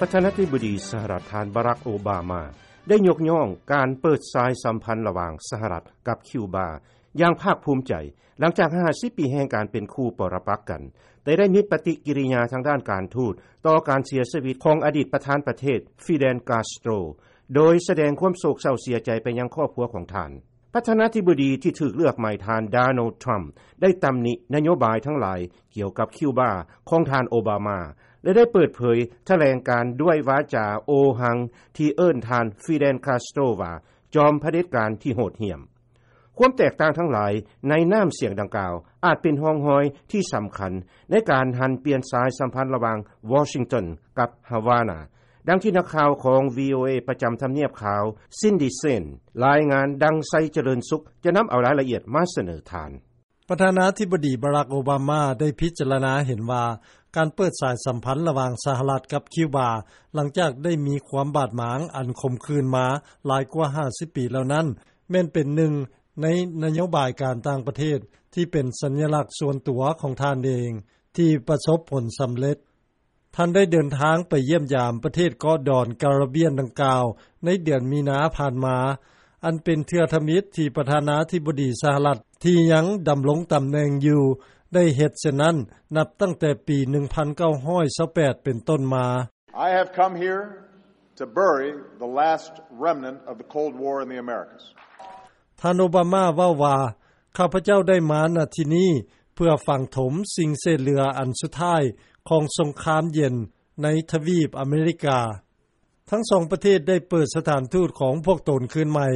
ປະທານາທິບໍດີສະຫະລັດ ທ່ານ ບາຣັກ ໂອບາມາ ໄດ້ຍົກຍ້ອງການເປີດສາຍສຳພັນລະຫວ່າງສະຫະລັດກັບຄິວບາຢ່າງພາກພູມໃຈ ຫຼັງຈາກຫ້າສິບປີແຫ່ງການເປັນຄູ່ປໍລະປັກກັນ, ແຕ່ໄດ້ມີປະຕິກິລິຍາທາງດ້ານການທູດຕໍ່ການເສຍຊີວິດຂອງອະດີດປະທານປະເທດ ຟີເດນ ກາສໂຕຣ ໂດຍສະແດງຄວາມໂສກເສົ້າເສຍໃຈໄປຍັງຄອບຄົວຂອງທ່ານ. ປະທານາທິບໍດີທີ່ຖືກເລືອກໃໝ່ ທ່ານ ໂດນັລ ທຣຳ ໄດ້ຕຳໜິນະໂຍບາຍທັງຫຼາຍກ່ຽວກັບຄິວບາຂອງທ່ານໂອບາມາ ແລະ ໄດ້ເປີດເຜີຍຖະແຫຼງການດ້ວຍວາຈາໂອຫັງ ທີ່ເອີ້ນທ່ານ ຟີເດນ ກາສໂຕຣ ວ່າຈອມຜະເດັດການທີ່ໂຫດຫ້ຽມ. ຄວາມແຕກຕ່າງທັງຫຼາຍໃນນ້ຳສຽງດັ່ງກ່າວ ອາດເປັນຮ່ອງຮອຍທີ່ສຳຄັນໃນການຫັນປ່ຽນສາຍສຳພັນລະຫວ່າງວໍຊິງຕັນກັບຮາວານາ, ດັ່ງທີ່ນັກຂ່າວຂອງ ວີໂອເອ ປະຈຳທຳນຽບຂາວ ຊິນດີ ເຊນ ລາຍງານ ດັ່ງ ໄຊຈະເລີນສຸກ ຈະນຳເອົາລາຍລະອຽດມາສະເໜີທ່ານ. ປະທານາທິບໍດີ ບາຣັກ ໂອບາມາ ໄດ້ພິຈາລະນາເຫັນວ່າ ການເປີດສາຍສຳພັນລະຫວ່າງສະຫະລັດກັບຄິວບາ ຫຼັງຈາກໄດ້ມີຄວາມບາດໝາງອັນຂົມຂື່ນມາຫຼາຍກວ່າຫ້າສິບປີແລ້ວນັ້ນ ແມ່ນເປັນໜຶ່ງໃນນະໂຍບາຍການຕ່າງປະເທດທີ່ເປັນສັນຍະລັກສ່ວນຕົວຂອງທ່ານເອງ ທີ່ປະສົບຜົນສຳເລັດ. ທ່ານໄດ້ເດີນທາງໄປຢ້ຽມຢາມປະເທດເກາະດອນກາຣິບຽນດັ່ງກ່າວໃນເດືອນມີນາຜ່ານມາ, ອັນເປັນເທື່ອທຳອິດທີ່ປະທານາທິບໍດີສະຫະລັດທີ່ຍັງດຳລົງຕຳແໜ່ງຢູ່ ໄດ້ເຮັດເຊັ່ນນັ້ນ ນັບຕັ້ງແຕ່ປີໜຶ່ງພັນເກົ້າຮ້ອຍຊາວແປດເປັນຕົ້ນມາ. I have come here to bury the last remnant of the Cold War in the Americas. ທ່ານໂອບາມາເວົ້າວ່າ, ຂ້າພະເຈົ້າໄດ້ມາ ນະ ທີ່ນີ້ ເພື່ອຝັງຖົມສິ່ງເສດເຫຼືອອັນສຸດທ້າຍຂອງສົງຄາມເຢັນໃນທະວີບອາເມລິກາ. ທັງສອງປະເທດໄດ້ເປີດສະຖານທູດຂອງພວກຕົນຄືນໃໝ່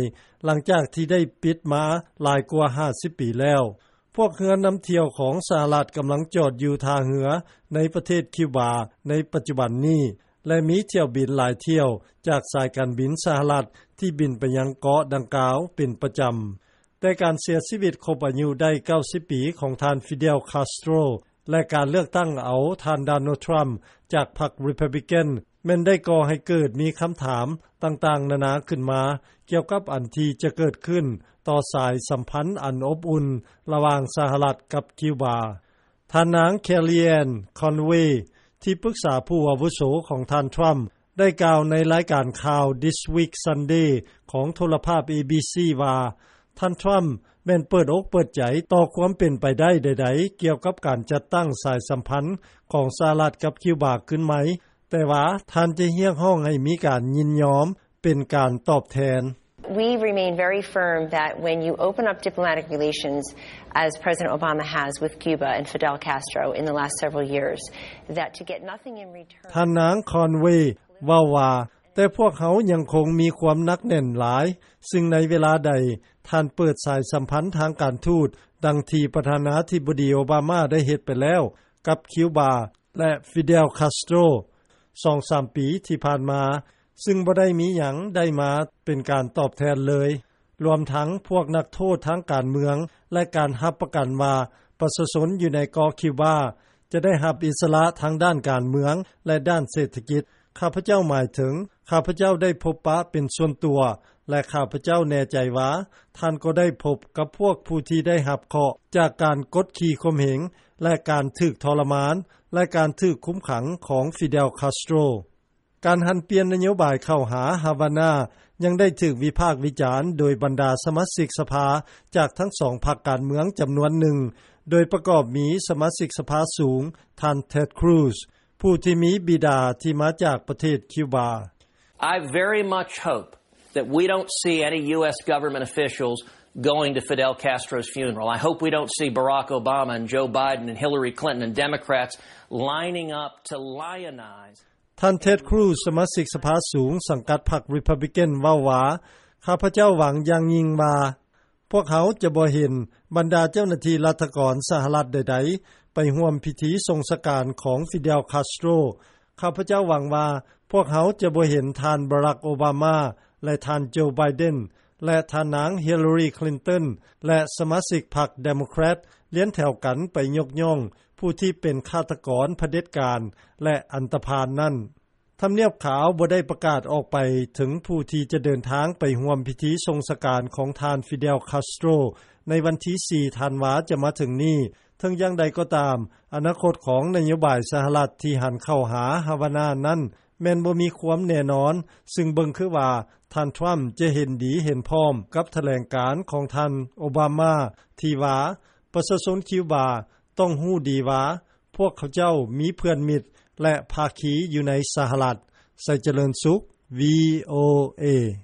ຫຼັງຈາກທີ່ໄດ້ປິດມາຫຼາຍກວ່າຫ້າສິບປີແລ້ວ. ພວກເຮືອນຳທ່ຽວຂອງສະຫະລັດກຳລັງຈອດຢູ່ທ່າເຮືອໃນປະເທດຄິວບາໃນປັດຈຸບັນນີ້ ແລະ ມີຖ້ຽວບິນຫຼາຍຖ້ຽວຈາກສາຍການບິນສະຫະລັດທີ່ບິນໄປຍັງເກາະດັ່ງກ່າວເປັນປະຈຳ. ແຕ່ການເສຍຊີວິດຄົບອາຍຸໄດ້ເກົ້າສິບປີຂອງທ່ານ ຟີເດລ ຄາສໂຕຣ ແລະ ການເລືອກຕັ້ງເອົາທ່ານ ໂດນັລ ທຣຳ ຈາກພັກ ຣີພັບບລິກັນ ແມ່ນໄດ້ກໍ່ໃຫ້ເກີດມີຄຳຖາມຕ່າງໆນານາຂຶ້ນມາ ກ່ຽວກັບອັນທີ່ຈະເກີດຂຶ້ນຕໍ່ສາຍສຳພັນອັນອົບອຸ່ນລະຫວ່າງສະຫະລັດກັບຄິວບາ. ທ່ານນາງ ແຄລີແອນ ຄອນເວ ທີ່ປຶກສາຜູ້ອາວຸໂສຂອງທ່ານທຣຳ ໄດ້ກ່າວໃນລາຍການຂ່າວ This Week Sunday ຂອງໂທລະພາບ ເອບີຊີ ວ່າ ທ່ານທຣຳແມ່ນເປີດອົກເປີດໃຈຕໍ່ຄວາມເປັນໄປໄດ້ໃດໆ ກ່ຽວກັບການຈັດຕັ້ງສາຍສຳພັນຂອງສະຫະລັດກັບຄິວບາຄືນໃໝ່, ແຕ່ວ່າທ່ານຈະຮຽກຮ້ອງໃຫ້ມີການຍິນຍອມເປັນການຕອບແທນ. We remain very firm that when you open up diplomatic relations, as President Obama has with Cuba and Fidel Castro in the last several years, that to get nothing in return. ທ່ານນາງ ຄອນເວ ເວົ້າວ່າ, ແຕ່ພວກເຮົາຍັງຄົງມີຄວາມໜັກແໜ້ນຫຼາຍ, ຊຶ່ງໃນເວລາໃດທ່ານເປີດສາຍສຳພັນທາງການທູດ ດັ່ງທີ່ປະທານາທິບໍດີໂອບາມາໄດ້ເຮັດໄປແລ້ວກັບຄິວບາ ແລະ ຟີເດລ ຄາສໂຕຣ ສອງສາມປີທີ່ຜ່ານມາ, ຊຶ່ງບໍ່ໄດ້ມີຫຍັງໄດ້ມາເປັນການຕອບແທນເລີຍ, ລວມທັງພວກນັກໂທດທາງການເມືອງ ແລະ ການຮັບປະກັນວ່າປະຊາຊົນຢູ່ໃນເກາະຄິວບາຈະໄດ້ຮັບອິດສະຫຼະທາງດ້ານການເມືອງ ແລະ ດ້ານເສດຖະກິດ. ຂ້າພະເຈົ້າໝາຍເຖິງ ຂ້າພະເຈົ້າໄດ້ພົບປະເປັນສ່ວນຕົວ ແລະ ຂ້າພະເຈົ້າແນ່ໃຈວ່າທ່ານກໍໄດ້ພົບກັບພວກຜູ້ທີ່ໄດ້ຮັບເຄາະຈາກການກົດຂີ່ຂົ່ມເຫງ ແລະ ການຖືກທໍລະມານ ແລະ ການຖືກຄຸມຂັງຂອງຟີເດລ ຄາສໂຕຣ. ການຫັນປ່ຽນນະໂຍບາຍເຂົ້າຫາຮາວານາ ຍັງໄດ້ຖືກວິພາກວິຈານໂດຍບັນດາສະມາຊິກສະພາຈາກທັງສອງພັກການເມືອງຈຳນວນໜຶ່ງ, ໂດຍປະກອບມີສະມາຊິກສະພາສູງ ທ່ານ ເທັດ ຄຣູຊ ຜູ້ທີ່ມີບິດາທີ່ມາຈາກປະເທດຄິວບາ. I very much hope that we don't see any U S government officials going to Fidel Castro's funeral. I hope we don't see Barack Obama and Joe Biden and Hillary Clinton and Democrats lining up to lionize. ທ່ານ ເທັດ ຄຣູຊ ສະມາຊິກສະພາສູງສັງກັດພັກ ຣີພັບບລິກັນ ເວົ້າວ່າ, ຂ້າພະເຈົ້າຫວັງຢ່າງຍິ່ງວ່າ ພວກເຮົາຈະບໍ່ເຫັນບັນດາເຈົ້າໜ້າທີ່ລັດຖະກອນສະຫະລັດໃດໆໄປຮ່ວມພິທີສົ່ງສະການຂອງຟີເດລ ຄາສໂຕຣ. ຂ້າພະເຈົ້າຫວັງວ່າພວກເຮົາຈະບໍ່ເຫັນທ່ານ ບາຣັກ ໂອບາມາ ແລະ ທ່ານ ໂຈ ໄບເດັນ ແລະ ທ່ານນາງ ຮິລລາຣີ ຄລິນຕັນ ແລະ ສະມາຊິກພັກເດໂມແຄຣດລຽນແຖວກັນໄປຍົກຍ້ອງຜູ້ທີ່ເປັນຄາດຕະກອນຜະເດັດການ ແລະ ອັນຕະພານນັ້ນ. ທຳນຽບຂາວບໍ່ໄດ້ປະກາດອອກໄປເຖິງຜູ້ທີ່ຈະເດີນທາງໄປຮ່ວມພິທີສົ່ງສະການຂອງທ່ານ ຟີເດລ ຄາສໂຕຣ ໃນວັນທີສີ່ ທັນວາຈະມາເຖິງນີ້. ເຖິງຢ່າງໃດກໍຕາມ, ອະນາຄົດຂອງນະໂຍບາຍສະຫະລັດທີ່ຫັນເຂົ້າຫາຮາວານານັ້ນ ແມ່ນບໍ່ມີຄວາມແນ່ນອນ ຊຶ່ງເບິ່ງຄືວ່າ ທ່ານ Trump ຈະເຫັນດີເຫັນພ້ອມ ກັບຖະແຫຼງການ ຂອງທ່ານ Obama ທີ່ວ່າ ປະຊາຊົນ Cuba ຕ້ອງຮູ້ດີວ່າ ພວກເຂົາເຈົ້າ ມີເພື່ອນມິດ ແລະ ພາຄີ ຢູ່ໃນສະຫະລັດ. ໄຊຈະເລີນສຸກ VOA.